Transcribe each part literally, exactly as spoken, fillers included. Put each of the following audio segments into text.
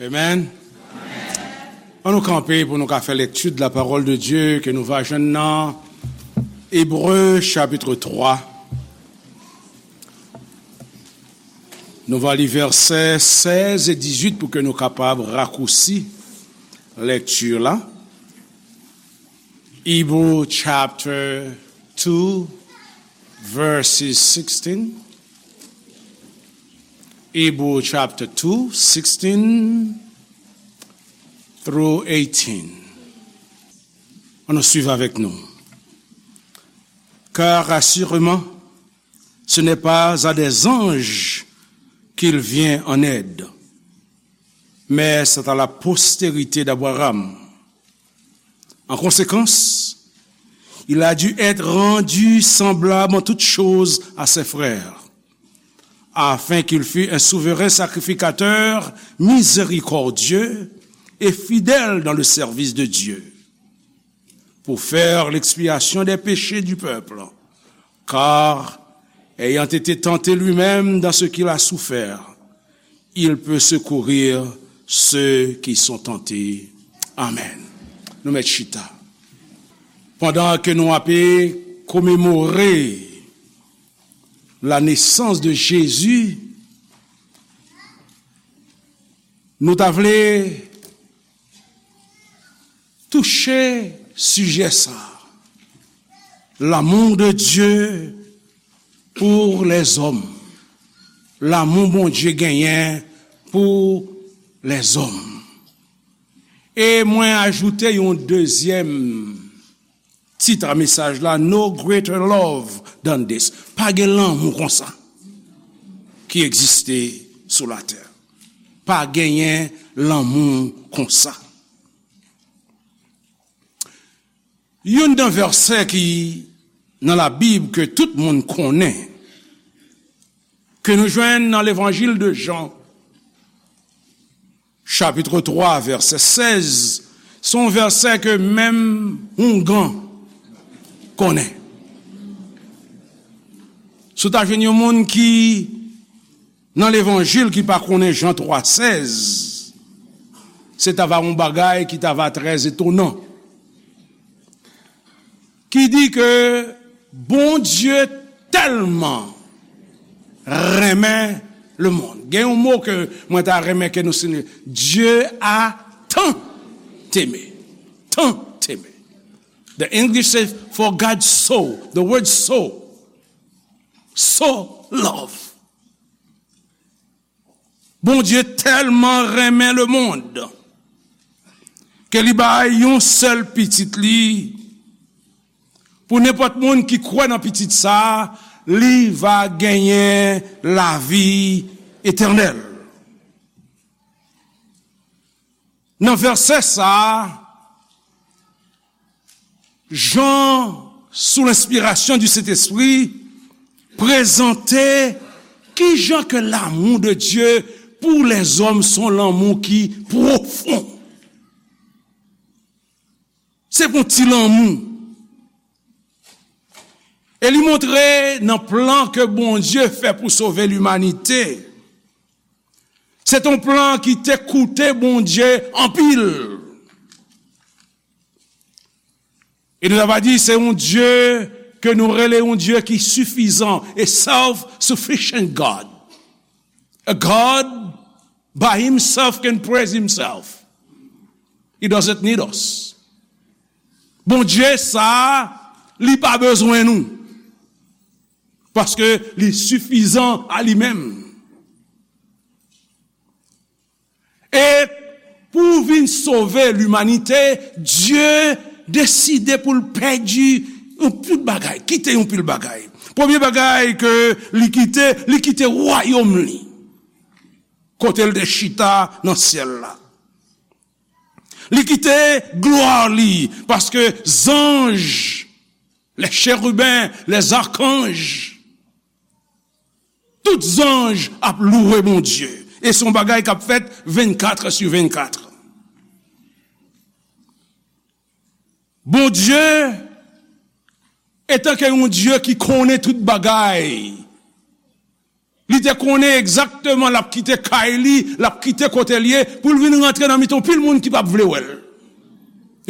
Amen. Ann nou kanpe pou nou ka fè lekti de la parole de Dieu ke nou va jwenn nan Ebre chapit twa. Nou va li vèsè sèz e dizuit pou ke nou kapab rakousi lekti la. Hebrew chapter two, verses sixteen. Hebrew chapter two, sixteen through eighteen. Ann nou swiv avèk nou. Car assurément, ce n'est pas à des anges qu'il vient en aide, mais c'est à la postérité d'Abraham. En conséquence, il a dû être rendu semblable en toutes choses à ses frères, afin qu'il fût un souverain sacrificateur miséricordieux et fidèle dans le service de Dieu, pour faire l'expiation des péchés du peuple, car, ayant été tenté lui-même dans ce qu'il a souffert, il peut secourir ceux qui sont tentés. Amen. Nou mèt chita. Pandan ke nou ape komemore la nesans de Jezi, nou ta vle touche sijè sa, l'amour de Dieu pour les hommes. Lanmou Bondye genyen pou lèzòm. E mwen ajoute yon dezyèm tit a mesaj la, No greater love than this. Pa gen lanmou konsa ki egziste sou latè. Pa genyen lanmou konsa. Youn nan vèsè ki nan Labib ke tout moun konnen, ke nou jwenn nan Levanjil de Jan, chapit twa, vèsè sèz, se yon vèsè ke menm houngan konnen. Si w ta jwenn yon moun ki nan Levanjil ki pa konnen Jan twa sèz, se ta va yon bagay ki ta va trè etonan. Ki di ke Bondye tèlman renmen lemonn. Gen yon mo ke mwen ta renmen ke nou site. Dieu a tant aimé. Tant aimé. The English says, "For God so." The word so. So love. Bondye tèlman renmen lemonn ke li bay yon sèl pitit li, pou nenpòt moun ki kwè nan pitit sa, li va genyen lavi etènèl. Nan vèsè sa, Jan, sous l'inspiration du Saint-Esprit, prezante kijan ke l'amour de Dieu pour les hommes se yon lanmou ki pwofon. Se pa yon ti lanmou. E li montre nan plan ke Bondye fè pou sove limanite, se te yon plan ki te koute Bondye anpil. E nou ta va di se yon Dye ke nou rele yon Dye ki sifizan, a self-sufficient God. A God by himself can praise himself. He doesn't need us. Bondye sa, li pa bezwen nou. Paske li sifizan a li menm. E pou vin sove limanite, Dye deside pou l pèdi yon pil bagay, kite yon pil bagay. Premye bagay ke li kite, li kite wayòm li, kote l te chita nan syèl la. Li kite glwa li, paske zanj, les chérubins, les archanges, tout zanj ap louwe Bondye. E se yon bagay k ap fèt vennkat sou vennkat. Bondye, etanke yon Dye ki konnen tout bagay, Li te konnen egzakteman l ap kite kay li, l ap kite kote l ye, pou l vin rantre nan mitan yon pil moun ki p ap vle wè l.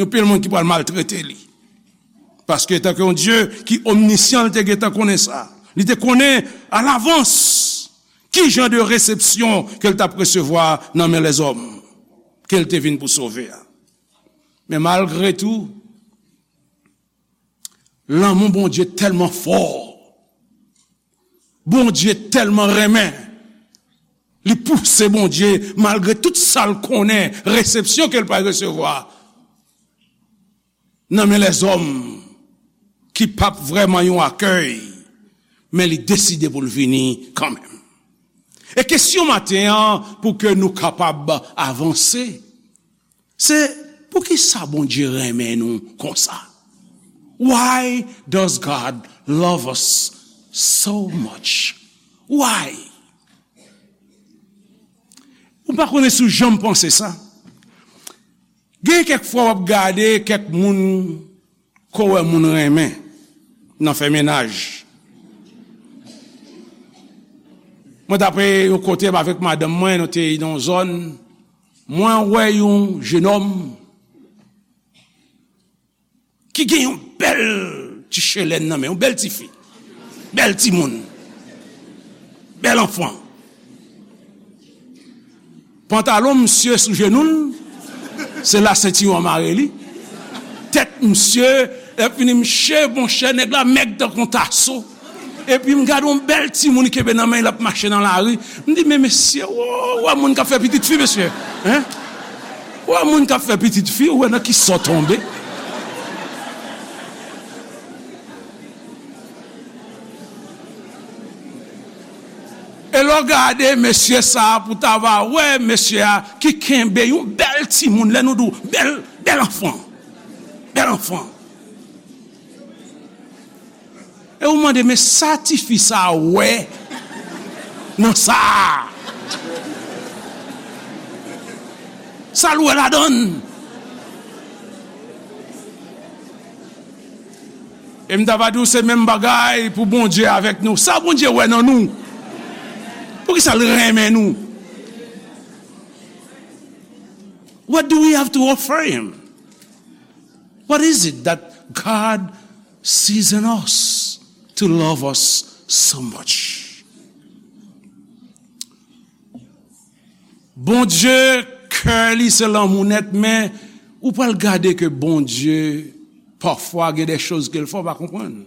Yon pil moun ki pral maltrete li. Paske, etanke yon Dye ki omnisyan, li te gentan konnen sa. Li te konnen alavans ki jan de resepsyon ke l t ap resevwa nan men lèzòm ke l te vin pou sove a. Men malgre tou, lanmou Bondye tèlman fò, Bondye tèlman renmen, li pouse Bondye, malgre tout sa l konnen, resepsyon ke l pral resevwa nan men lèzòm ki p ap vrèman yon akèy, men li deside pou l vini kanmenm. E kesyon maten an, pou ke nou kapab avanse, se poukisa Bondye renmen nou konsa? Why does God love us so much? Why? Ou pa konnen si w janm panse sa. Gen kèk fwa w ap gade kèk moun ke w wè moun renmen nan fè mennaj. Mwen t ap yon kote avèk madanm mwen, nou te nan yon zòn, mwen wè yon jenòm ki gen yon bèl ti chelèn nan men, yon bèl tifi, bèl timoun, bèl anfan. Pantalon misye sou jenou l, se la sentiwon an mare li. Tèt misye, lè fini, mche, monchè, nèg la mèg tankou yon taso. Epi m gade yon bèl timoun li kenbe nan men l, l ap mache nan lari. M di, "Men mesye, w, w wè moun k ap fè pitit fi, mesye? Hein? W wè moun k ap fè pitit fi, w wè nan kisa w tonbe?" E lè w gade mesye sa a, pou w ta va wè mesye a ki kenbe yon bèl timoun, lè nou di w bèl, bèl anfan, bèl anfan. E ou mande, "Men sa tifi sa a wè nan sa a? Sa l wè ladan l?" E m ta va di w se menm bagay pou Bondye avèk nou. Sa Bondye wè nan nou? Poukisa l renmen nou? What do we have to offer him? What is it that God sees in us to love us so much? Bondye, kè li se lanmou nèt, men ou pral gade ke Bondye, pafwa, gen de choz ke l fè w pa konprann.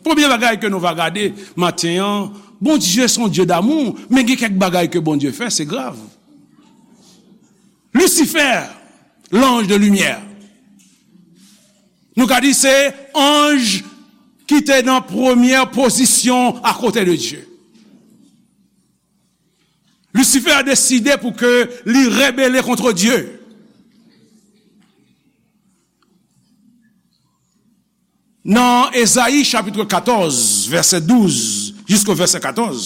Premye bagay ke nou va gade maten an, Bondye se yon Dye damou, men gen kèk bagay ke Bondye fè, se grav. Lisifè, lanj de limyè. Nou ka di se anj ki te nan premyè pozisyon akote de Dye. Lisifè deside pou ke li rebele kont Dye. Nan Ezayi chapit katòz, vèsè douz jiska vèsè katòz,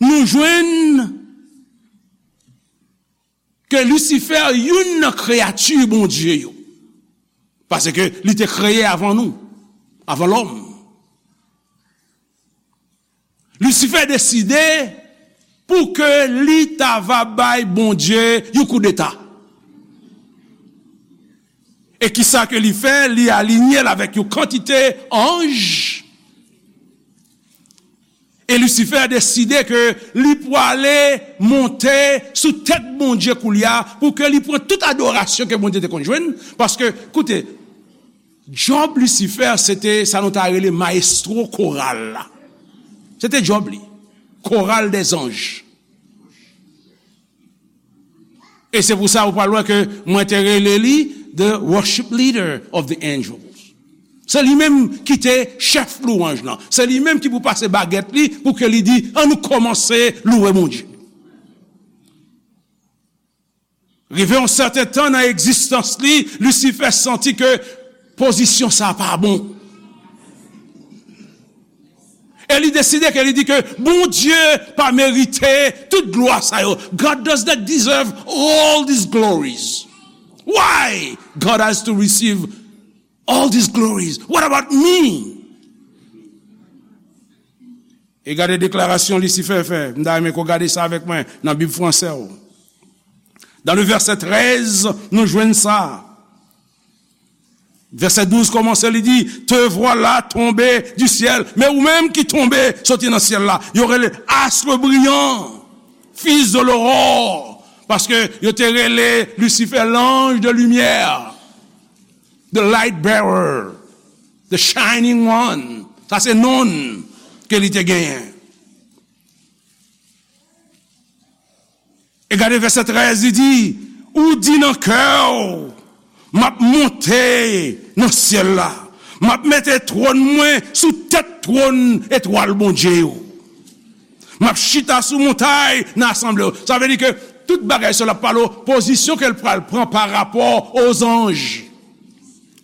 nou jwenn ke Lisifè youn nan kreyati Bondye yo, paske li te kreye avan nou, avan lòm. Lisifè deside pou ke li ta va bay Bondye yon koudeta. E kisa ke li fè? Li alinye l avèk yon kantite anj. E Lisifè deside ke li pwale monte sou tèt Bondye koulye a, pou ke li pran tout adorasyon ke Bondye te konn jwenn. Paske, koute, djòb Lisifè, se te sa nou ta rele mayestwo koral la. Se te djòb li. Koral dèzanj. E se pou sa ou pral wè ke mwen te rele li the worship leader of the angels. Se li menm ki te chèf lwanj lan. Se li menm ki pou pase bagèt li pou ke li di, "Ann nou kòmanse louwe Bondye." Rive yon sèten tan nan egzistans li, Lisifè santi ke pozisyon sa a pa bon. E li deside ke li di ke Bondye pa merite tout glwa sa yo. God does not deserve all these glories. Why God has to receive all these glories? What about me? E gade deklarasyon Lisifè fè. M ta renmen ke w gade sa avèk mwen nan Bib fransè w. Dans le verset treize, nou jwenn sa. Vèsè douz kòmanse, li di, te voilà tombé du ciel. Men ou menm ki tonbe soti nan syèl la. Yo rele astre brillant, fils de l'aurore. Paske yo te rele Lisifè l'ange de lumière, the light bearer, the shining one. Sa se non ke li te genyen. E gade vèsè trèz, li di, ou di nan kè w, m ap monte nan syèl la, m ap mete twòn mwen sou tèt twòn etwal Bondye yo. M ap chita sou montay nan asanble yo. Sa vle di ke tout bagay sa l ap pale w, pozisyon ke l pral pran pa rapò o zanj.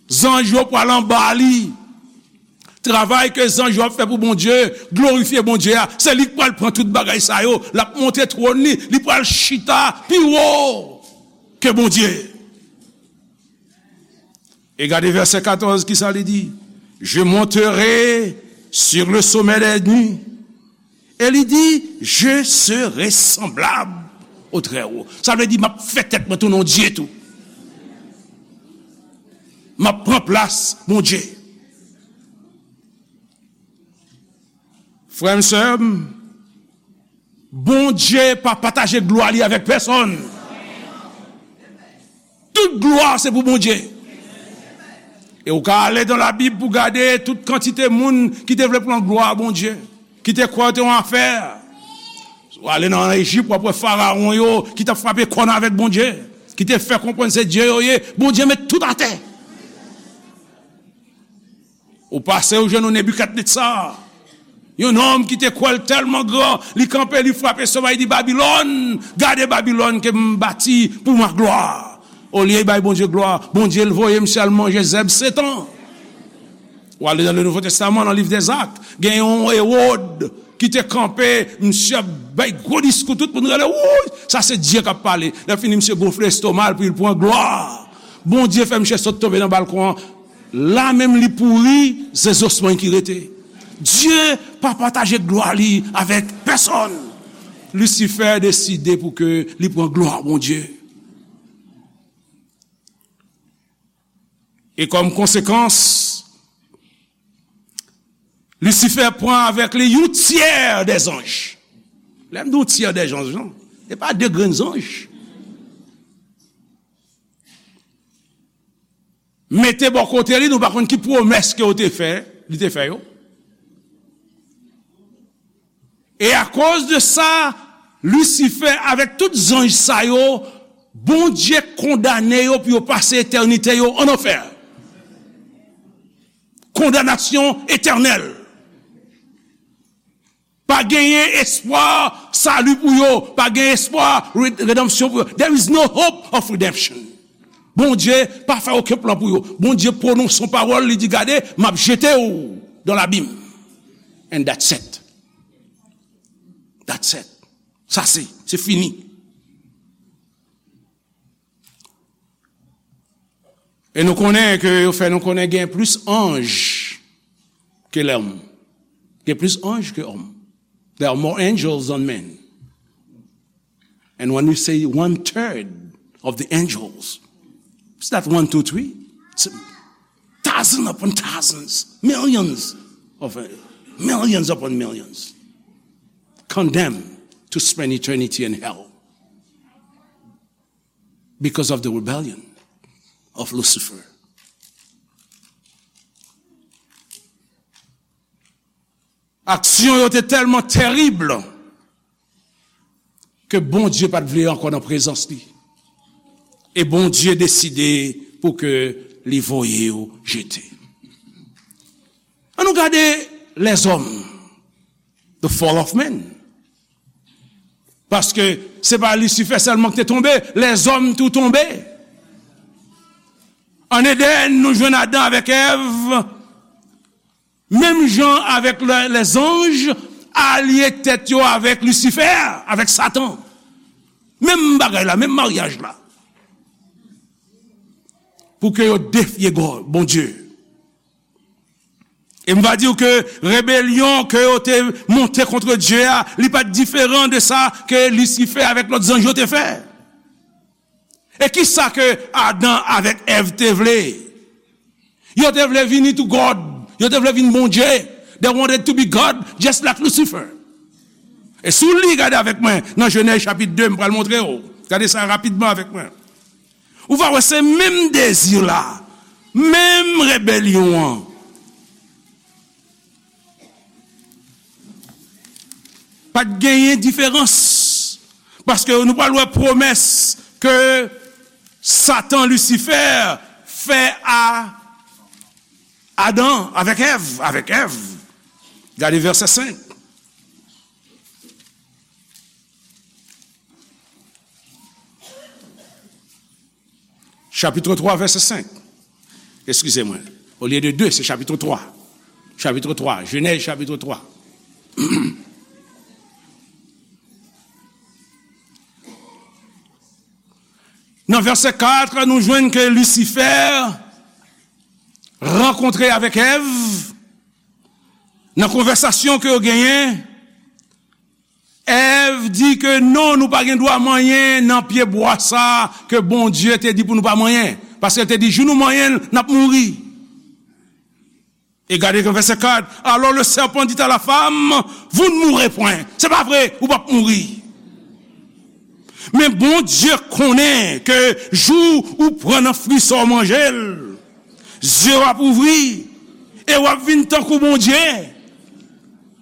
Zanj yo pral anba li. Travay ke zanj yo ap fè pou Bondye, glorifye Bondye a, se li k pral pran tout bagay sa yo. L ap monte twòn li, li pral chita pi wo ke Bondye. E gade vèsè katòz, kisa li di? Je monterai sur le sommet des nues. E li di, je serai semblable au Très-Haut. Sa vle di, m ap fè tèt mwen tounen yon dye tou. M ap pran plas Bondye. Frè m, sè m, Bondye pa pataje glwa li avèk pèsonn. Tout glwa se pou Bondye. E ou ka ale dans la Bible pou gade tout kantite moun ki te vle pran glwa a Bondye, ki te kwè yo te yon afè. Si w ale nan Ejip, w ap wè farawon yo ki t ap frape kòn avèk Bondye, ki te fè konprann se dye yo ye. Bondye met tout atè. Ou pase ou jwenn yon Nebikadnetza, yon nonm ki te kwè l tèlman gran, li kanpe, li frape somèy, li di, Babilòn, gade Babilòn ke m bati pour ma gloire. Olye l bay Bondye glwa, Bondye l voye misye al manje zèb sèt an. Ou ale nan le Nouvo Testaman, nan liv dèzak, gen yon Ewòd ki te kanpe, misye ap bay gwo diskou, tout moun rele, wouy, sa se Dye k ap pale. Lè fini, misye gonfle estoma l pou l pran glwa. Bondye fè misye sot tonbe nan balkon an. La menm li pouri, se zosmann ki rete. Dye pa pataje glwa li avèk pèsonn. Lisifè deside pou ke li pran glwa Bondye. E kòm konsekans, Lisifè pran avèk li yon tyè dè zanj. Lè m di yon tyè dè zanj, non, se pa de grenn zanj. Mete bò kote li, nou pa konn ki pwomès ke yo te fè, li te fè yo. E akoz de sa, Lisifè avèk tout zanj sa yo, Bondye kondane yo pou yo pase etènite yo an anfè. Kondanasyon etènèl. Pa genyen espwa sali pou yo, pa genyen espwa re-, redanmsyon pou yo. There is no hope of redemption. Bondye pa fè okenn plan pou yo. Bondye pwononse yon pawòl, li di, gade, m ap jete w dans l'abîme. And that's it. That's it. Sa se, se fini. E nou konnen ke yo fè nou konnen gen plis anj ke lòm. Gen plis anj ke òm. There are more angels than men. And when we say one third of the angels, it's not one, two, three. It's a thousand upon thousands, millions of, uh, millions upon millions condemned to spend eternity in hell because of the rebellion of Lucifer. Aksyon yo te tèlman terib ke Bondye pa t vle ankò nan prezans li. E Bondye deside pou ke li voye yo jete. Ann nou gade lèzòm, the fall of men. Paske se pa Lisifè sèlman ki te tonbe, lèzòm tou tonbe. An Edenn, nou jwenn Adan avèk Èv, menm jan avèk lè, lèzanj, alye tèt yo avèk Lisifè, avèk Satan. Menm bagay la, menm maryaj la. Pou ke yo defye Gò-, Bondye. E m va di w ke rebelyon ke yo te monte kont Dye a, li pa t diferan de sa ke Lisifè avèk lòt zanj yo te fè. E ki sa ke Adan avèk Èv te vle? Yo te vle vini to God. Yo te vle vin Bondye. They wanted to be God, just like Lucifer. E si w li, gade avèk mwen nan Jenèz chapit de, m pral montre w. Gade sa rapidman avèk mwen. Ou va wè se menm dezi la, menm rebelyon an. Pa t genyen diferans. Paske nou pral wè pwomès ke Satan Lisifè fè a Adan avèk Èv, avèk Èv. Gade vèsè senk. Chapitre trois, verset cinq. Excusez-moi. Au lieu de deux, c'est chapitre trois. Chapitre trois, Genèse chapitre trois. Nan vèsè kat, nou jwenn ke Lisifè rankontre avèk Èv. Nan konvèsasyon ke yo genyen, Èv di ke non, nou pa gen dwa manyen nan pye bwa sa ke Bondye te di pou nou pa manyen. Paske l te di, jou nou manyen l, n ap mouri. E gade nan vèsè kat, alors le serpent dit à la femme, vous ne mourrez point. Se pa vre, ou p ap mouri. Men Bondye konnen ke jou ou pran nan fwi sa w manje l, zye w ap ouvri, e w ap vin tankou Bondye.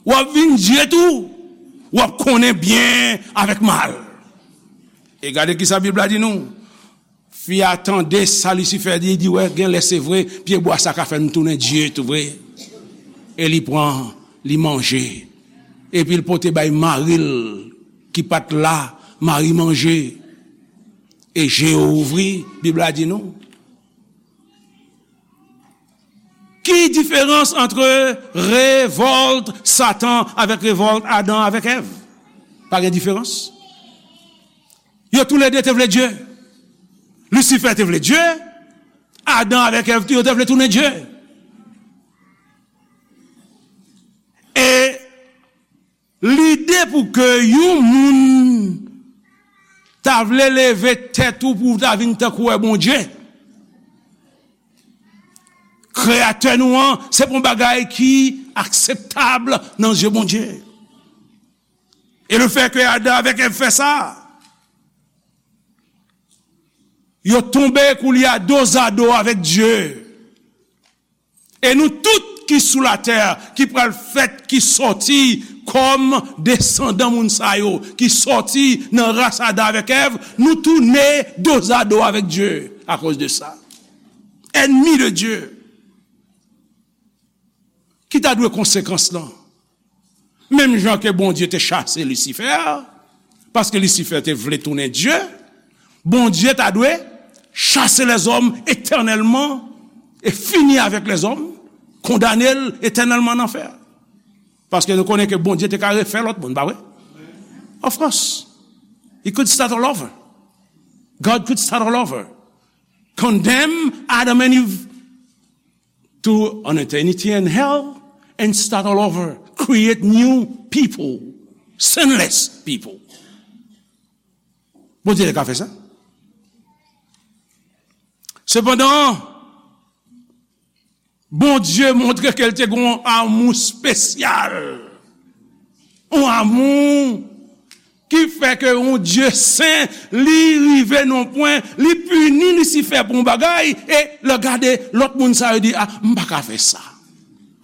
W ap vin Dye tou. W ap konnen byen avèk mal. E gade ki sa Bib la di nou. Fi a tande sa Lisifè di, li di, wè, gen lè se vre, pye bwa sa ka fè m tounen Dye tou vre. E li pran, li manje. Epi l pote bay mari l ki pa t la, mari manje. E je yo ouvri, Bib la di nou. Ki diferans ant revòlt Satan avèk revòlt Adan avèk Èv? Pa gen diferans. Yo toulède te vle Dye. Lisifè te vle Dye. Adan avèk Èv tou, yo te vle tounen Dye. E lide pou ke yon moun ta vle leve tèt ou pou w ta vin tankou wè Bondye, Kreyatè nou an, se pa yon bagay ki akseptab nan zye Bondye. E lefètke Adan avèk Èv fè sa, yo tonbe koulye a dozado avèk Dye. E nou tout ki sou latè, ki pral fèt, ki sòti kòm desandan moun sa yo, ki sòti nan ras Adan avèk Èv, nou tounen dozado avèk Dye akoz de sa. Ènmi de Dye. Ki ta dwe konsekans lan? Menm jan ke Bondye te chase Lisifè, paske Lisifè te vle tounen Dye, Bondye ta dwe chase lèzòm etènèlman e fini avèk lèzòm, kondane l etènèlman nan anfè. Paske nou konnen ke Bondye te ka refè lòt moun, pa vre? Of course. He could start all over. God could start all over. Condemn Adam and Eve to an eternity in hell and start all over. Create new people, sinless people. Bondye te ka fè sa. Sepandan, Bondye montre ke l te gen yon amou espesyal. Yon amou ki fè ke yon Dye sen, li rive nan pwen, li pini Lisifè pou yon bagay, e lè gade lòt moun sa yo di, "Ah, m pa ka fè sa.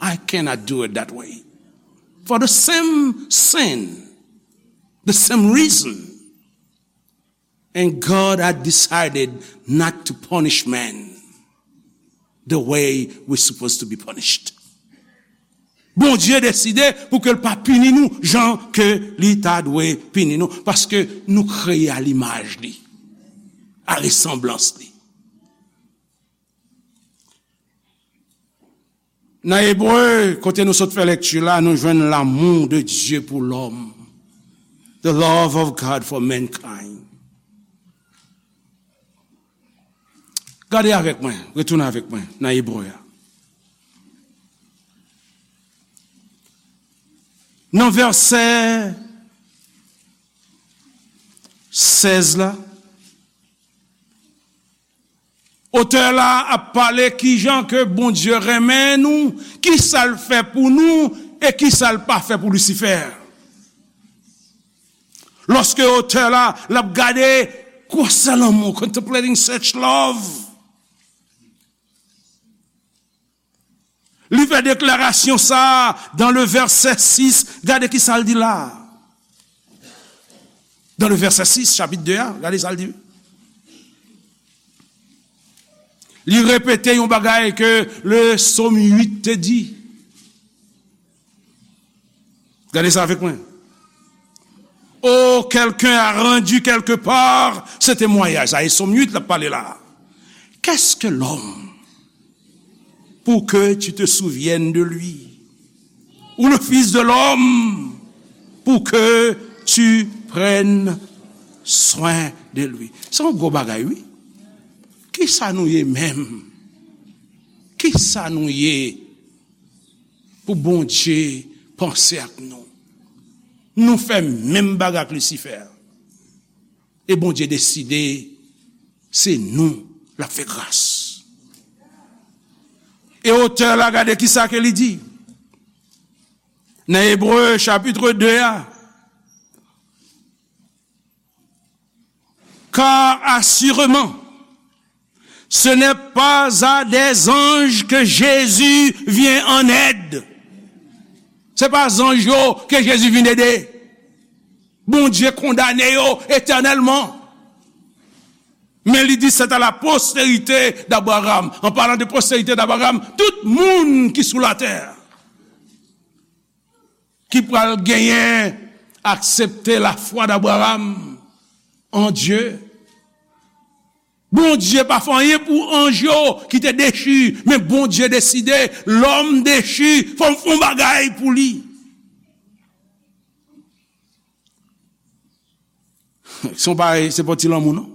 I cannot do it that way." For the same sin, the same reason. And God had decided not to punish man the way we're supposed to be punished. Bondye deside pou ke l pa pini nou jan ke li ta dwe pini nou, paske nou kreye a limaj li, a resanblans li. Nan Ebre, kote nou sot fè lekti la, nou jwenn l'amour de Dieu pour l'homme. The love of God for mankind. Gade avèk mwen, retounen avèk mwen nan Ebre a. Nan vèsè sèz la, otè la ap pale kijan ke Bondye renmen nou, kisa l fè pou nou, e kisa l pa fè pou Lisifè. Lòske otè la, l ap gade gwosè lanmou, contemplating such love. Li fè deklarasyon sa a dans le verset six. Gade ki sa l di la. Dans le verset six, chapit de a, gade sa l di. Li repete yon bagay ke le Sòm uit te di. Gade sa avèk mwen. Oh, quelqu'un a rendu quelque part ce témoignage. Sa e Sòm uit l ap pale la. Qu'est-ce que l'homme pour que tu te souviennes de lui? Ou le fils de l'homme pour que tu prennes soin de lui. Se yon gwo bagay, wi. Kisa nou ye menm? Kisa nou ye pou Bondye panse ak nou? Nou fè menm bagay ak Lisifè. E Bondye deside se nou l ap fè gras. E otè la, gade kisa ke li di nan Ebre chapit de a. Car assurément, ce n'est pas à des anges que Jésus vient en aide. Se pa zanj yo ke Jezi vin ede. Bondye kondane yo etènèlman. Men li di, c'est à la postérité d'Abraham. En parlant de postérité d'Abraham, tout moun ki sou latè ki pral genyen aksepte lafwa d'Abraham en Dieu. Bondye pa fè anyen pou anj yo ki te dechi, men Bondye deside, lòm dechi, fò m fè yon bagay pou li. Se yon bagay, se pa yon ti lanmou, non.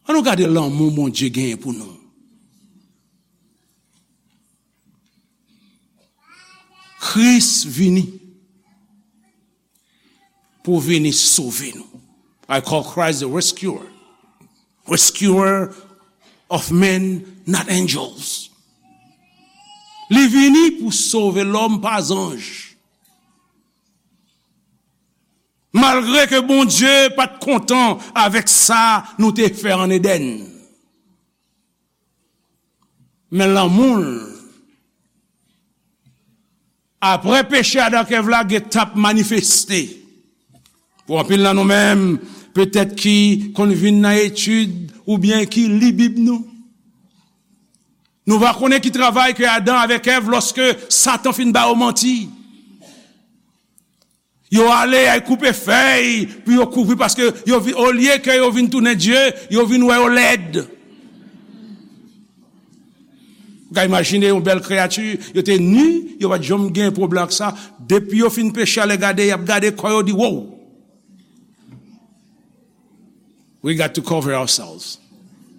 An nou gade lanmou Bondye genyen pou nou. Kris vini pou vini sove nou. I call Christ the rescuer. Rescuer of men, not angels. Li vini pou sove lòm, pa zanj. Malgre ke Bondye pa t kontan avèk sa nou te fè ann Edenn. Men lanmou l, apre peche Adan ak Èv la, gen t ap manifeste. Pou anpil nan nou menm, petèt ki konn vin nan etid oubyen ki li Bib nou, nou va konnen ki travay ke Adan avèk Èv, lòske Satan fin ba yo manti. Yo ale, y al koupe fèy pou yo kouvri, paske yo vi-, olye ke yo vin tounen Dye, yo vin wè yo lèd. Ou ka imajine yon bèl kreyati, yo te ni, yo pa t janm gen pwoblèm ak sa. Depi yo fin peche, ale gade, y ap gade kò yo, di, wow! We got to cover ourselves.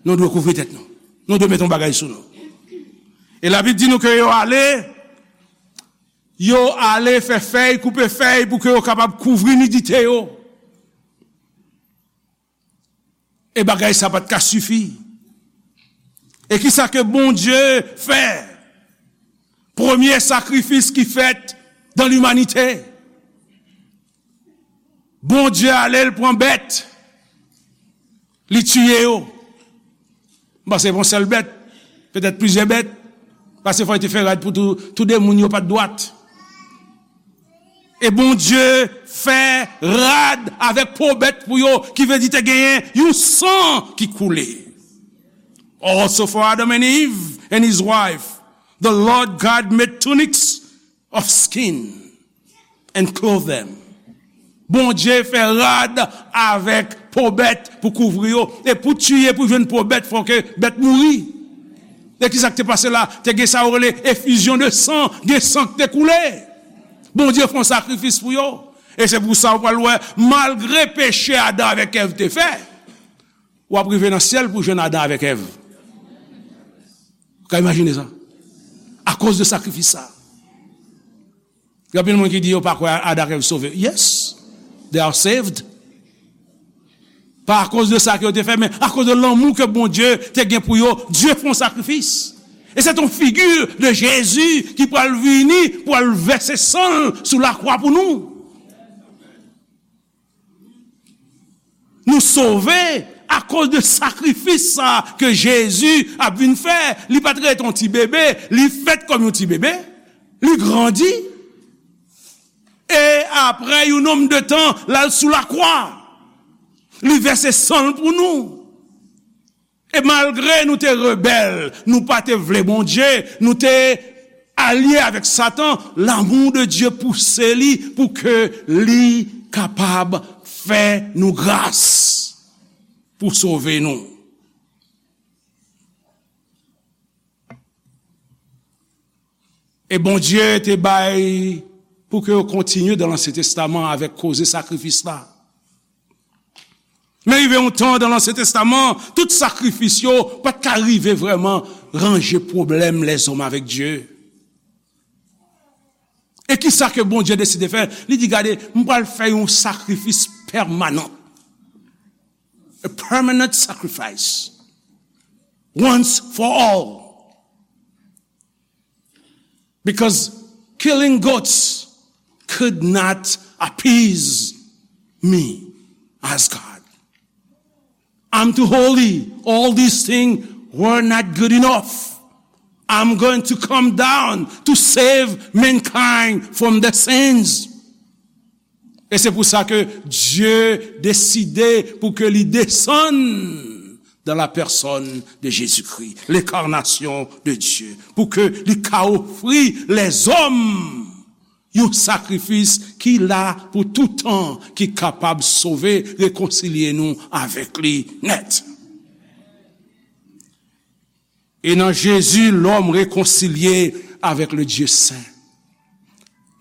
Nou dwe kouvri tèt nou. Nou dwe met yon bagay sou nou. E Labib di nou ke yo ale, yo ale fè fèy, koupe fèy pou ke yo kapab kouvri nidite yo. E bagay sa pa t ka sifi. E kisa ke Bondye fè? Premye sakrifis ki fèt dan limanite. Bondye ale, l pran bèt, li tiye yo. M panse se pa yon sèl bèt, petèt plizyè bèt, paske fò yo te fè rad pou tou, tou de moun yo pa t dwat. E Bondye fè rad avèk po bèt pou yo, ki vle di te genyen yon san ki koule. Also for Adam and Eve and his wife, the Lord God made tunics of skin and clothed them. Bondye fè rad avèk po bèt pou kouvri yo. E pou tiye, pou jwenn po bèt, fò ke bèt mouri. E kisa k te pase la? Te gen sa yo rele efizyon de san, gen san k te koule. Bondye fè yon sakrifis pou yo. E se pou sa w pral wè, malgre peche Adan avèk Èv te fè, w ap rive nan syèl pou jwenn Adan avèk Èv. Ou ka imajine sa? Akoz de sakrifis sa. Gen anpil moun ki di yo pa kwè Adan ak Èv sove. Yes, they are saved. Pa akoz de sa ke yo te fè, men akoz de lanmou ke Bondye te gen pou yo, Dye fè yon sakrifis. E se yon figi de Jezi ki pral vini, pral vèse san l sou lakwa pou nou. Nou sove akoz de sakrifis sa ke Jezi ap vin fè. Li pa t ret yon ti bebe, li fèt kòm yon ti bebe, li grandi. E apre yon nonm de tan, l al sou lakwa. Li vèse san l pou nou. E malgre nou te rebèl, nou pa te vle Bondye, nou te alye avèk Satan, lanmou de Dye pouse li pou ke li kapab fè nou gras pou sove nou. E Bondye te bay pou ke yo kontinye dan Ansyen Testaman avèk koze sakrifis la. Men rive yon tan dan Ansyen Testaman, tout sakrifis yo pa t ka rive vrèman ranje pwoblèm lèzòm avèk Dye. E kisa ke Bondye deside fè? Li di, gade, m pral fè yon sakrifis pèmanan. A permanent sacrifice. Once for all. Because killing goats could not appease me as God. I'm too holy. All these things were not good enough. I'm going to come down to save mankind from their sins. E se pou sa ke Dye deside pou ke li desann dans la personne de Jésus-Christ, l'incarnation de Dieu, pou ke li ka ofri lèzòm yon sakrifis ki la pou tout tan, ki kapab sove, rekonsilye nou avèk li nèt. E nan Jezi, lòm rekonsilye avèk le Dye sen.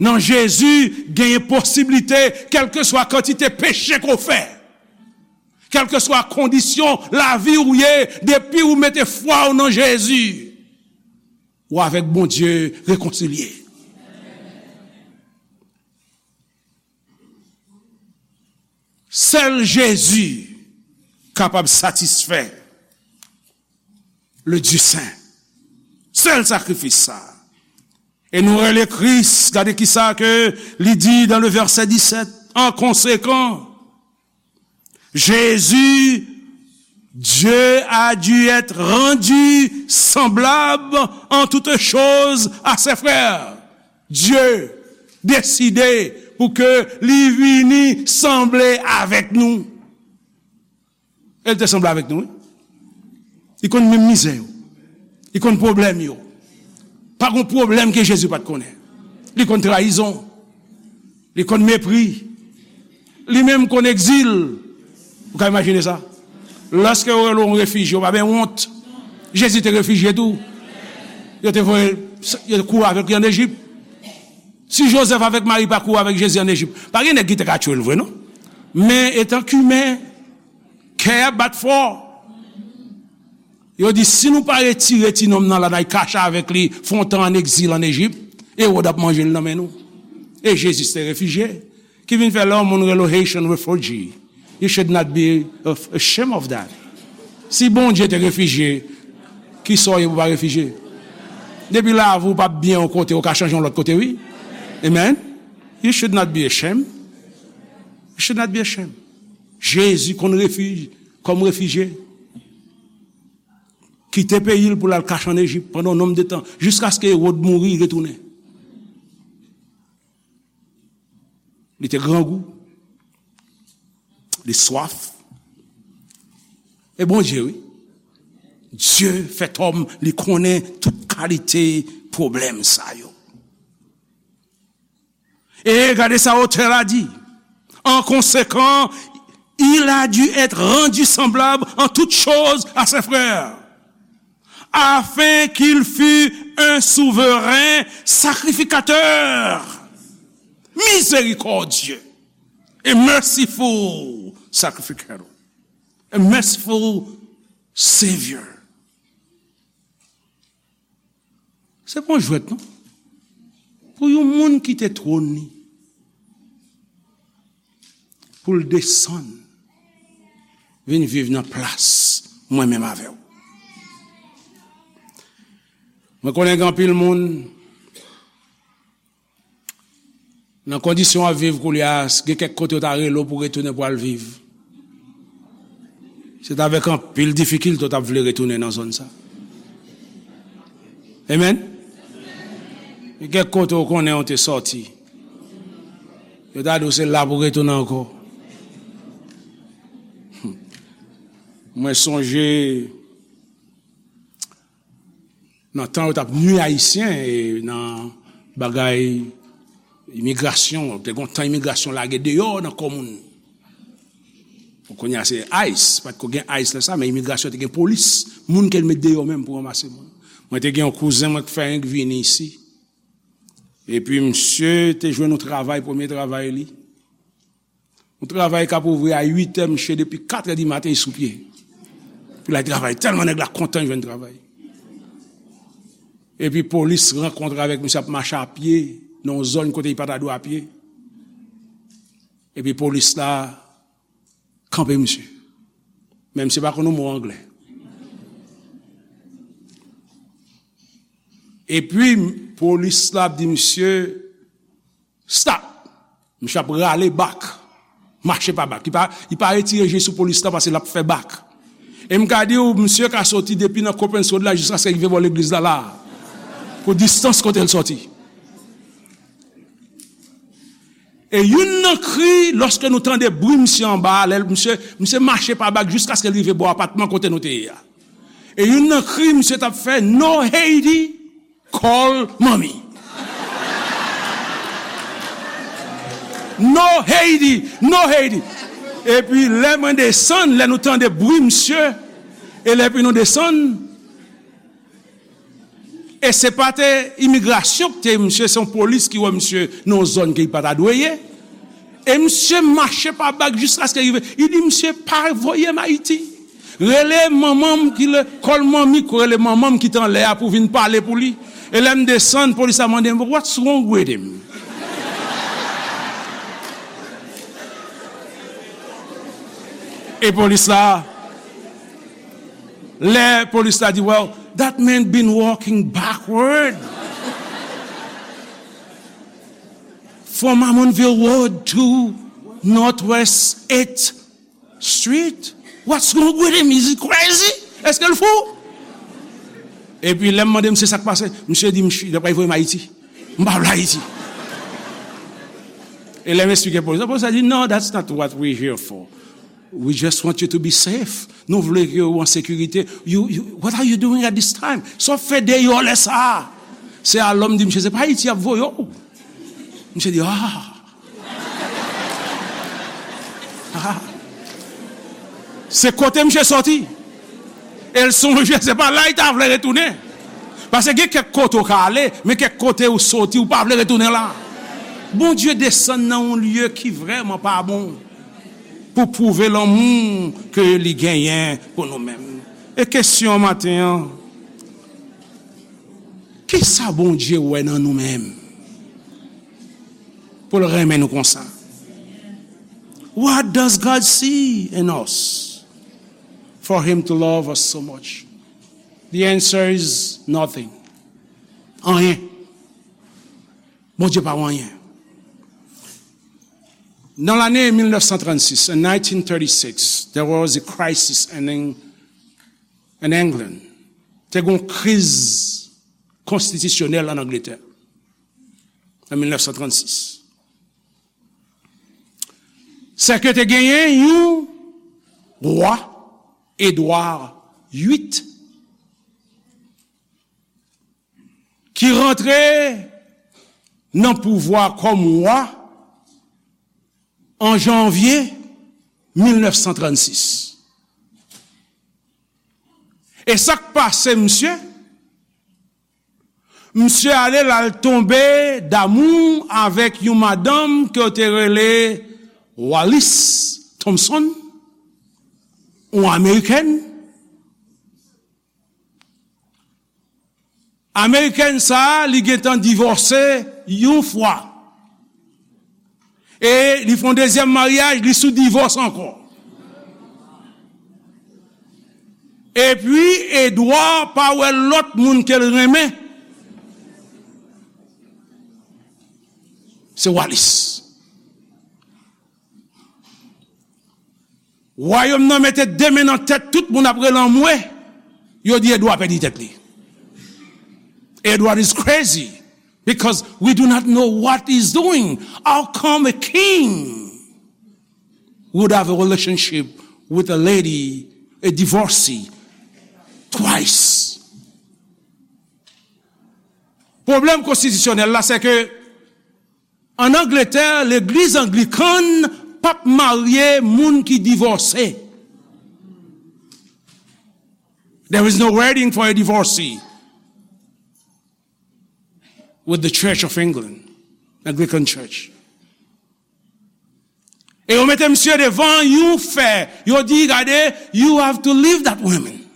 Nan Jezi, genyen posiblite, kèlkeswa kantite peche ke w fè, kèlkeswa kondisyon lavi ou ye, depi ou mete fwa w nan Jezi, ou avèk Bondye rekonsilye. Sèl Jezi kapab satisfè le Dye sen. Sèl sakrifis sa. E nou rele Kris, gade kisa ke li di dan le vèsè disèt, en conséquent, Jésus, Dieu a dû être rendu semblable en toutes choses à ses frères. Dye deside pou ke li vini sanble avèk nou. E l te sanble avèk nou, wi. Li konn menm mizè yo. Li konn pwoblèm yo. Pa gon pwoblèm ke Jezi pa t konnen. Li konn trayizon. Li konn mepri. Li menm konn egzil. Ou ka imajine sa? Lòske yo rele w yon refijye, ou pa benyen wont. Jezi te refijye tou. Yo te voye, yo te kouri avèk li ann Ejip. Si Jozèf avèk Mari pa kouri avèk Jezi ann Ejip, pa gen nèg ki te ka tchwe l vre, non. Men, etan ke imen, kè a bat fò. Yo di, si nou pa retire ti nonm nan la, n al kache avèk li, fè yon tan ann egzil ann Ejip, Ewòd ap manje l nan men nou. E Jezi se te refijye. Ki vin fè lè yon moun rele w Haitian refugee, you should not be ashamed of that. Si Bondye te refijye, kisa w ye pou w pa refijye? Depi lavi w p ap byen yon kote, ou ka chanje yon lòt kote, wi. Amen. You should not be ashamed. You should not be ashamed. Jezi konn refij-, kòm refijye. Kite peyi l pou l al kache ann Ejip pandan yon nonm de tan, jiskaske Ewòd mouri, li retounen. Li te grangou. Li swaf. E Bondye, wi. Dye fèt òm, li konnen tout kalite pwoblèm sa yo. E gade sa otè la di. En conséquent, il a dû être rendu semblable en toutes choses à ses frères, afin qu'il fût un souverain sacrificateur, miséricordieux, a merciful sacrificator, a merciful Savior. Se pa yon jwèt, non. Pou yon moun kite twòn li, pou l desann, vin viv nan plas mwen menm avè w. Mwen konnen gen anpil moun, nan kondisyon w ap viv koulye a, gen kèk kote yo ta rele w pou retounen pou al viv. Se t avèk anpil difikilte w t ap vle retounen nan zòn sa. Amen. Gen kèk kote w konnen w te sòti. Yo ta di w se la pou retounen ankò. Mwen sonje nan tan yo t ap nui Ayisyen e nan bagay imigrasyon, te gen yon tan imigrasyon lage deyò nan kò moun. Bon, kounye a se ice, pa t ko gen ice lè sa, men imigrasyon te gen polis, moun ke l met deyò menm pou ranmase moun. Mwen te gen yon kouzen mwen k fè renk vini isi. Epi misye te jwenn yon travay, premye travay li. Yon travay k ap ouvri a uit è, misye depi kat è di maten li sou pye. Pou l al travay, tèlman nèg la kontan jwenn travay. Epi polis rankontre avèk misye ap mache a pye nan yon zòn kote li pa ta dwe a pye. Epi polis la kanpe misye. Men misye pa konn yon mo anglè. Epi polis la ap di misye, stop! Misye ap rale bak. Mache pa bak. Li pa, li pa retire je sou polis la paske l ap fè bak. E m ka di w, misye ka soti depi nan Coppens Road la jiskaske l rive bò legliz la, la. Pou distans kote l soti. E youn nan kri, lòske nou tande bri misye anba a, lè misye, misye mache pa bak jiskaske l rive bò apatman kote nou te ye a. E youn nan kri misye t ap fè, "No Haiti, call mommy." No Haiti, no Haiti. Epi lè mwen desann, lè nou tande bri misye, e lè epi nou desann, e se pa te imigrasyon ki te misye, se yon polis ki wè misye nan yon zòn ke li pa ta dwe ye. E misye mache pa bak jiskaske rive. Li di, "Misye pa voye m Ayiti. Rele manman m ki le, call mommy, rele manman m ki t anlè a pou vin pale pou li." E lè m desann, polis la mande m, "What's wrong with him?" E polis la, lè polis la di, "Well, that man been walking backward from Amonville Road to Northwest eighth Street. What's wrong with him? Is he crazy? Èske l fou?" Epi lè m mande misye sa k pase, misye di, "Misye, yo pral voye m Ayiti. M pa vle Ayiti." E lè m eksplike polis la, polis la di, "No, that's not what we here for. We just want you to be safe. Nou vle ke w an sekirite. You, you, what are you doing at this time? Sa w fè deyò lè sa a?" Se alò m di misye, "Se pa Ayiti y ap voye w." Misye di, "Ah." Ah. Se kote misye sòti. E l sonje, se pa la li ta vle retounen. Paske gen kèk kote w ka ale, men kèk kote w soti, w pa vle retounen la. Bondye desann nan yon lye ki vrèman pa bon pou pwouve lanmou ke li genyen pou nou menm. E kesyon maten an, kisa Bondye wè nan nou menm pou l renmen nou konsa? What does God see in us for him to love us so much? The answer is nothing. Anyen. Bondye pa wè anyen. Nan lane mil nèf san trannsis, in nineteen thirty-six, there was a crisis in, Eng- in England. Te gen yon kriz konstitisyonèl an Angletè, an mil nèf san trannsis. Sèke te genyen yon wa, Edwa uit, ki rantre nan pouvwa kòm wa an janvye mil nèf san trannsis. E sa k pase, misye? Misye ale, l al tonbe damou avèk yon madanm ke yo te rele Wallis Thompson, yon amerikèn. Amerikèn sa a, li gentan divòse yon fwa. E li fè yon dezyèm maryaj, li sou divòs ankò. Epi, Edward pa wè lòt moun ke l renmen. Se Wallis. Wayòm nan mete de men nan tèt tout moun ap rele anmwe. Yo di Edward pèdi tèt li. Edward is crazy because we do not know what he's doing. How come a king would have a relationship with a lady, a divorcee, twice? Pwoblèm konstitisyonèl la, se ke an Angletè, legliz anglikan p ap marye moun ki divòse. There is no wedding for a divorcee with the Church of England, Anglican Church. E yo mete misye devan yon fè. Yo di, gade, you have to leave that woman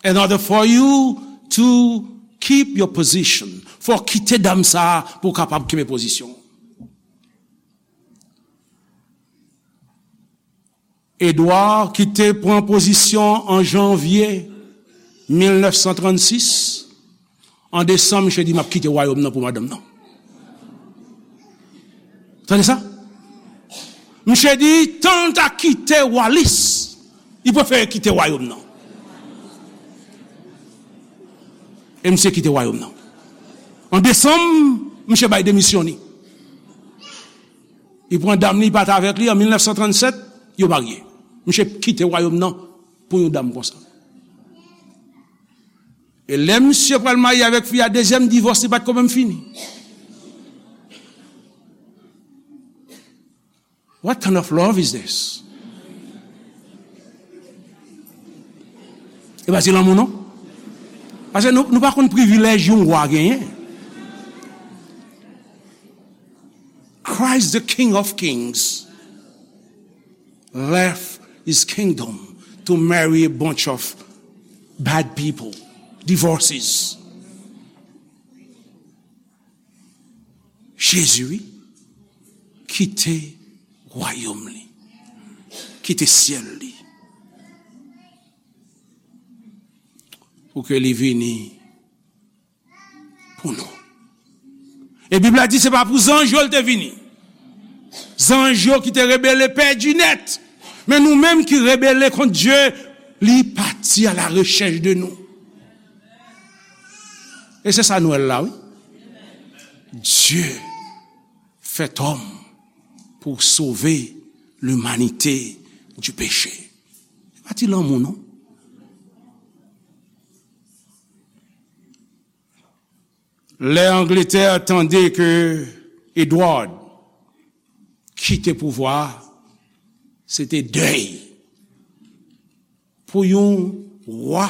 in order for you to keep your position. Fò w kite dam sa a pou w kapab kenbe pozisyon w. Edward ki te pran pozisyon an janvye mil nèf san trannsis, an desanm, misye di, "M ap kite wayòm nan pou madanm nan." Tande sa? Misye di, tan l ta kite Wallis, li prefere kite wayòm nan. E misye kite wayòm nan. An desanm, misye bay demisyon li. Li pran dam li, li pati avèk li an mil nèf san trannsèt, yo marye. Misye kite wayòm nan pou yon dam konsa. E lè misye pral marye avèk fi a, dezyèm divòs li pa t ko menm fini. What kind of love is this? E pa se lanmou non. Paske nou, nou pa konn privilèj yon wa genyen. Christ, the King of Kings, left his kingdom to marry a bunch of bad people, divorces. Jezi, wi, kite wayòm li, kite syèl li, pou ke li vini pou nou. E Bib la di se pa pou zanj yo l te vini. Zanj yo ki te rebele pèdi nèt. Men nou menm ki rebele kont Dye, li pati à la recherche de nous. E se sa Nwèl la, wi. Dieu fait homme pour sauver l'humanité du péché. Se pa ti lanmou, non. Lè Angletè tande ke Edward kite pouvwa a, se te dèy. Pou yon wa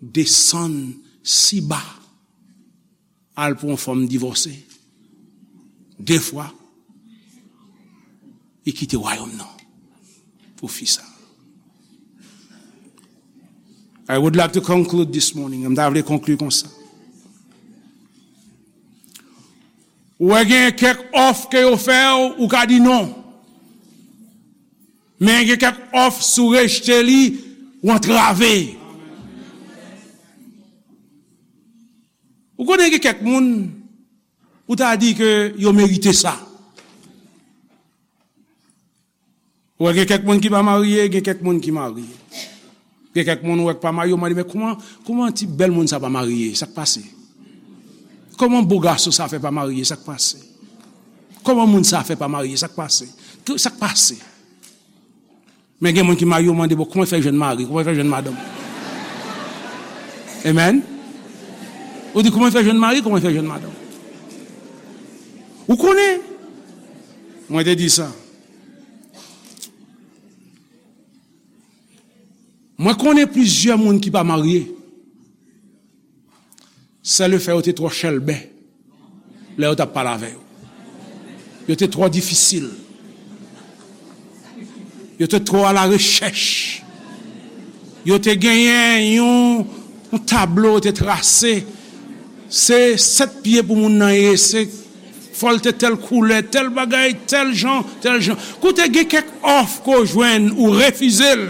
desann si ba, al pou yon fanm divòse de fwa, li kite wayòm nan pou fi sa. I would like to conclude this morning. M ta vle konkli konsa. Ou wè gen kèk òf ke yo fè w, ou ka di non. Men gen kèk òf, si w rejte li, ou antrave. Ou konnen gen kèk moun, ou ta di ke yo merite sa. Ou wè gen kèk moun ki pa marye, gen kèk moun ki marye. Gen kèk moun ou wè k pa marye, ou mande, "Men kòman, kòman ti bèl moun sa pa marye? Sa k pase? Kòman bo gason sa fè pa marye? Sa k pase? Kòman moun sa fè pa marye? Sa k pase? Sa k pase?" Men gen moun ki marye, ou mande, "Bon, kòman l fè jwenn mari? Kòman l fè jwenn madanm?" Amen. Ou di, "Kòman l fè jwenn mari? Kòman l fè jwenn madanm?" Ou konnen, mwen te di sa. Mwen konnen plizyè moun ki pa marye. Se lefè yo te twò chèlbè lè yo t ap pale avè yo. Yo te twò difisil. Yo te twò alarechèch. Yo te genyen yon Yon tablo te trase. Se sèt pye pou moun nan ye. Se fò l te tèl koulè, tèl bagay, tèl jan, tèl jan. Koute, gen kèk òf ke w jwenn, ou refize l,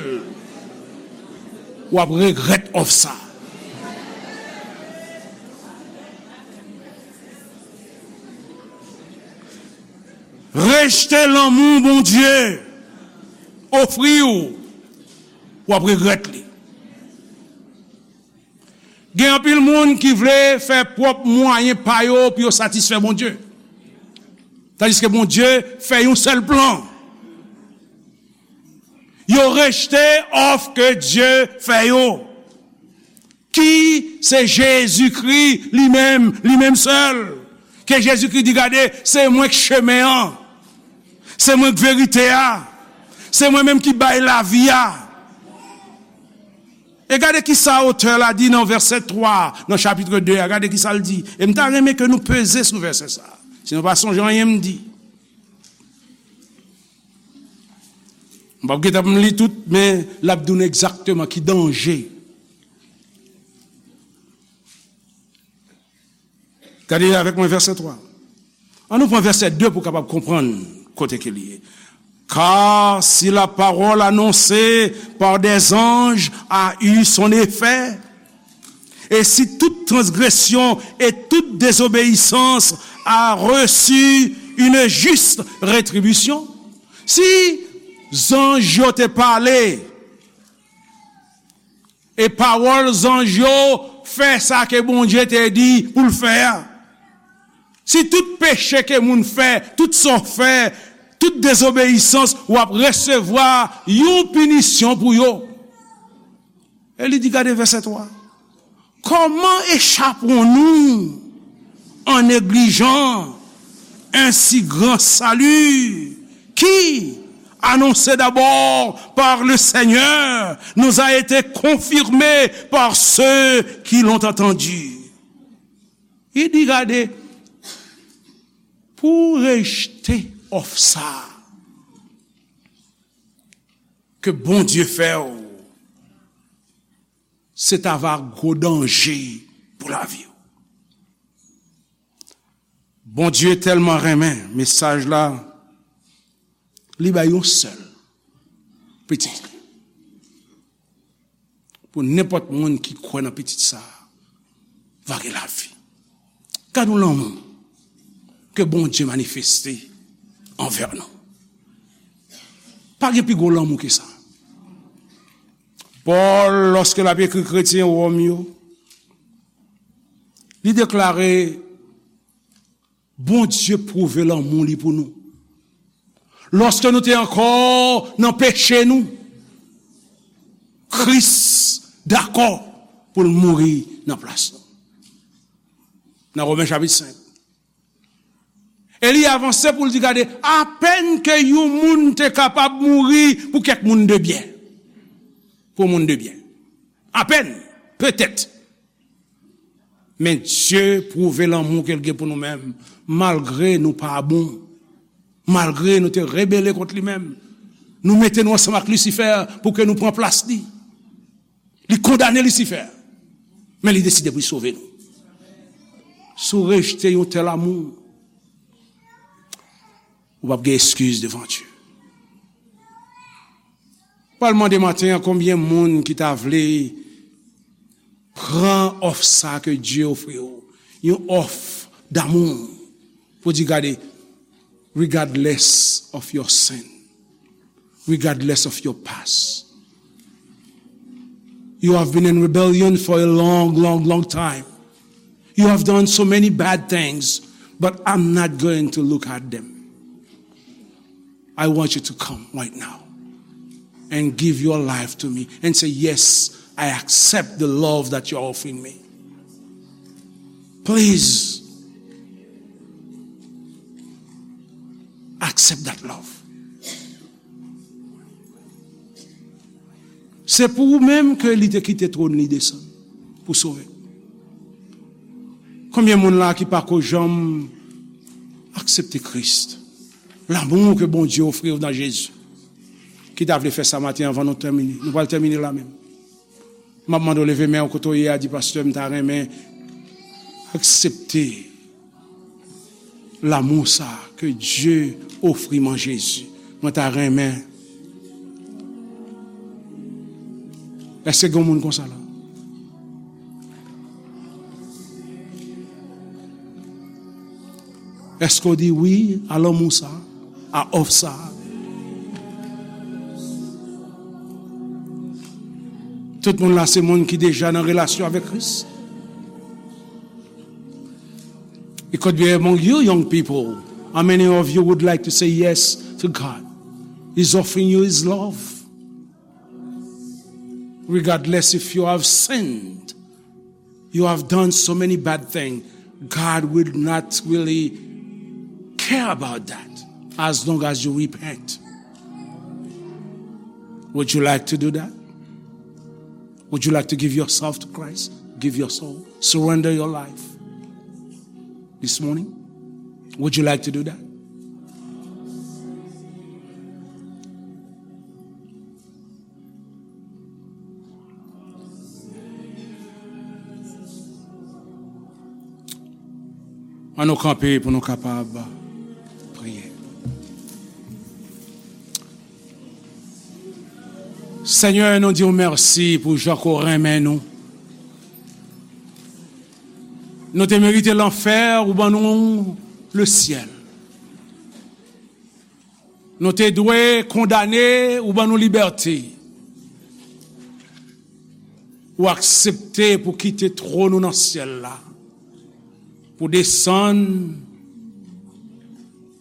w ap regrèt òf sa. Rejte lanmou Bondye ofri w, w ap regrèt li. Gen anpil moun ki vle fè pwòp mwayen pa yo pou yo satisfè Bondye. Tandiske Bondye fè yon sèl plan. Yo rejte òf ke Dye fè yo, ki se Jezikri li menm, li menm sèl. Ke Jezikri di, "Gade, se mwen k chemen an, se mwen k verite a, se mwen menm ki bay lavi a." E gade ki sa otè la di nan vèsè twa, nan chapit de a. Gade ki sa l di. E m ta renmen ke nou peze sou vèsè sa. Si nou pa sonje anyen m di. M p ap gentan pou m li tout, men l ap di w egzakteman ki danje. Gade avèk mwen vèsè twa. An nou pran vèsè de pou w kapab konprann kote ke li ye. Car si la parole annoncée par des anges a eu son effet, et si toute transgression et toute désobéissance a reçu une juste rétribution, si zanj yo te pale, e pawòl zanj yo fè sa ke Bondye te di pou l fè a. Si tout peche ke moun fè, tout sa w fè, tout dezobeyisans, w ap resevwa yon pinisyon pou yo. E li di, gade vèsè twa. Comment échapperons-nous en négligeant un si grand salut qui, annoncé d'abord par le Seigneur, nous a été confirmé par ceux qui l'ont entendu? Li di, gade, pou w rejte òf sa a ke Bondye fè w, se ta va gwo danje pou lavi w. Bondye tèlman renmen mesaj la, li bay yon sèl pitit li. Pou nenpòt moun ki kwè nan pitit sa a, va gen lavi. Gad yon lanmou ke Bondye manifeste anvè nou. Pa gen pi gwo lanmou ke sa. Pòl, lòske l ap ekri kretyen Wòm yo, li deklare, Bondye pwouve lanmou li pou nou. Lòske nou te ankò nan peche nou, Kris dakò pou l mouri nan plas nou. Nan Women chapit senk. E li avanse pou l di, gade, apèn ke yon moun te kapab mouri pou kèk moun de byen. Pou moun de byen. Apèn, petèt. Men Dye pwouve lanmou ke l gen pou nou menm, malgre nou pa bon, malgre nou te rebele kont li menm. Nou mete nou ansanm ak Lisifè pou ke nou pran plas li. Li kondane Lisifè, men li deside pou li sove nou. Si w rejte yon tèl amou, ou p ap gen eskiz devan Dye. Pral mande maten an, konbyen moun ki ta vle pran òf sa ke Dye ofri w, yon òf damou, pou di, gade, regardless of your sin, regardless of your past. You have been in rebellion for a long, long, long time. You have done so many bad things, but I'm not going to look at them. I want you to come right now and give your life to me and say, yes, I accept the love that you're offering me. Please accept that love. Se pou ou menm ke li te kite twòn li desann pou sove. Konbyen moun la ki pako janm aksepte Kris? Lanmou ke Bondye ofri w nan Jezi. Ki ta vle fè sa maten anvan nou tèmine? Nou pral tèmine la menm. M ap mande w leve men w kote w ye a, di, pastè, m ta renmen aksepte lanmou sa ke Dye ofri m an Jezi. Mwen ta renmen. Èske gen moun konsa la? Èske w di wi a lanmou sa, a òf sa? Tout moun la se moun ki deja nan relasyon avèk Kris? It could be among you young people. How many of you would like to say yes to God? He's offering you his love. Regardless if you have sinned, you have done so many bad things, God will not really care about that as long as you repent. Would you like to do that? Would you like to give yourself to Christ? Give your soul. Surrender your life this morning. Would you like to do that? Ann nou kanpe pou nou kapab priye. Senyè, nou di w mèsi pou jan ke w renmen nou. Nou te merite lanfè, ou ban nou lesyèl. Nou te dwe kondane, ou ban nou libète. Ou aksepte pou kite twòn ou nan syèl la, pou desann,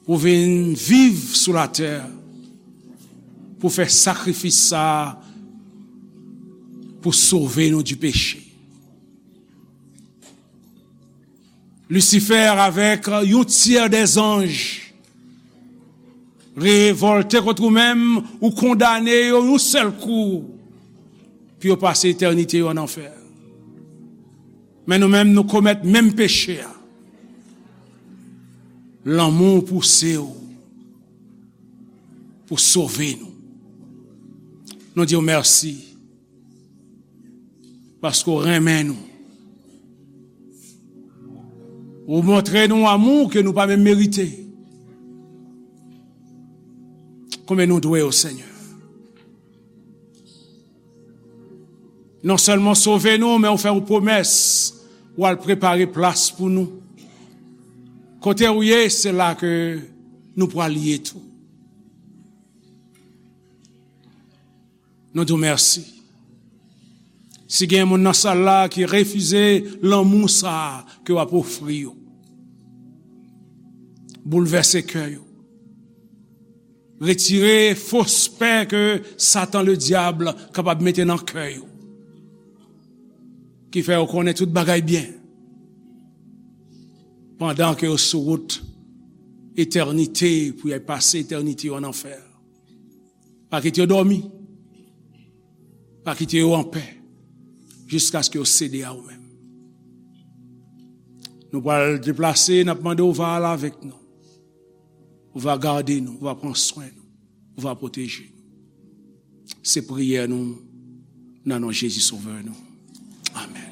pou vin viv sou latè, pou fè sakrifis sa a, pou sove nou di peche. Lisifè avèk yon tyè dè zanj revòlte kont ou menm, ou kondane yo yon sèl kou pou yo pase etènite yo ann anfè. Men nou menm, nou komèt menm peche a. Lanmou w pouse w pou sove nou. Nou di w mèsi. Paske w renmen nou. Ou montre nou amou ke nou pa menm merite. Konbyen nou dwe w, Senyè? Non sèlman sove nou, men ou fè yon pwomès, ou al prepare plas pou nou. Kote ou ye, se la ke nou pral ye tou. Nou di w mèsi. Si gen moun nan sal la ki refize lanmou sa a ke w ap ofri yo, boulvèse kè yo. Retire fos pè ke Satan Ledyab kapab mete nan kè yo, ki fè yo konnen tout bagay byen, pandan ke yo sou wout etènite pou y al pase etènite yo ann anfè. Pa kite yo dòmi. Pa kite yo anpè jiskaske yo sede a ou menm. Nou pral deplase, n ap mande w va al avèk nou. Ou va gade nou, ou va pran swen nou, ou va pwoteje nou. Se priyè nou nan non Jezi Sovè nou. Amèn.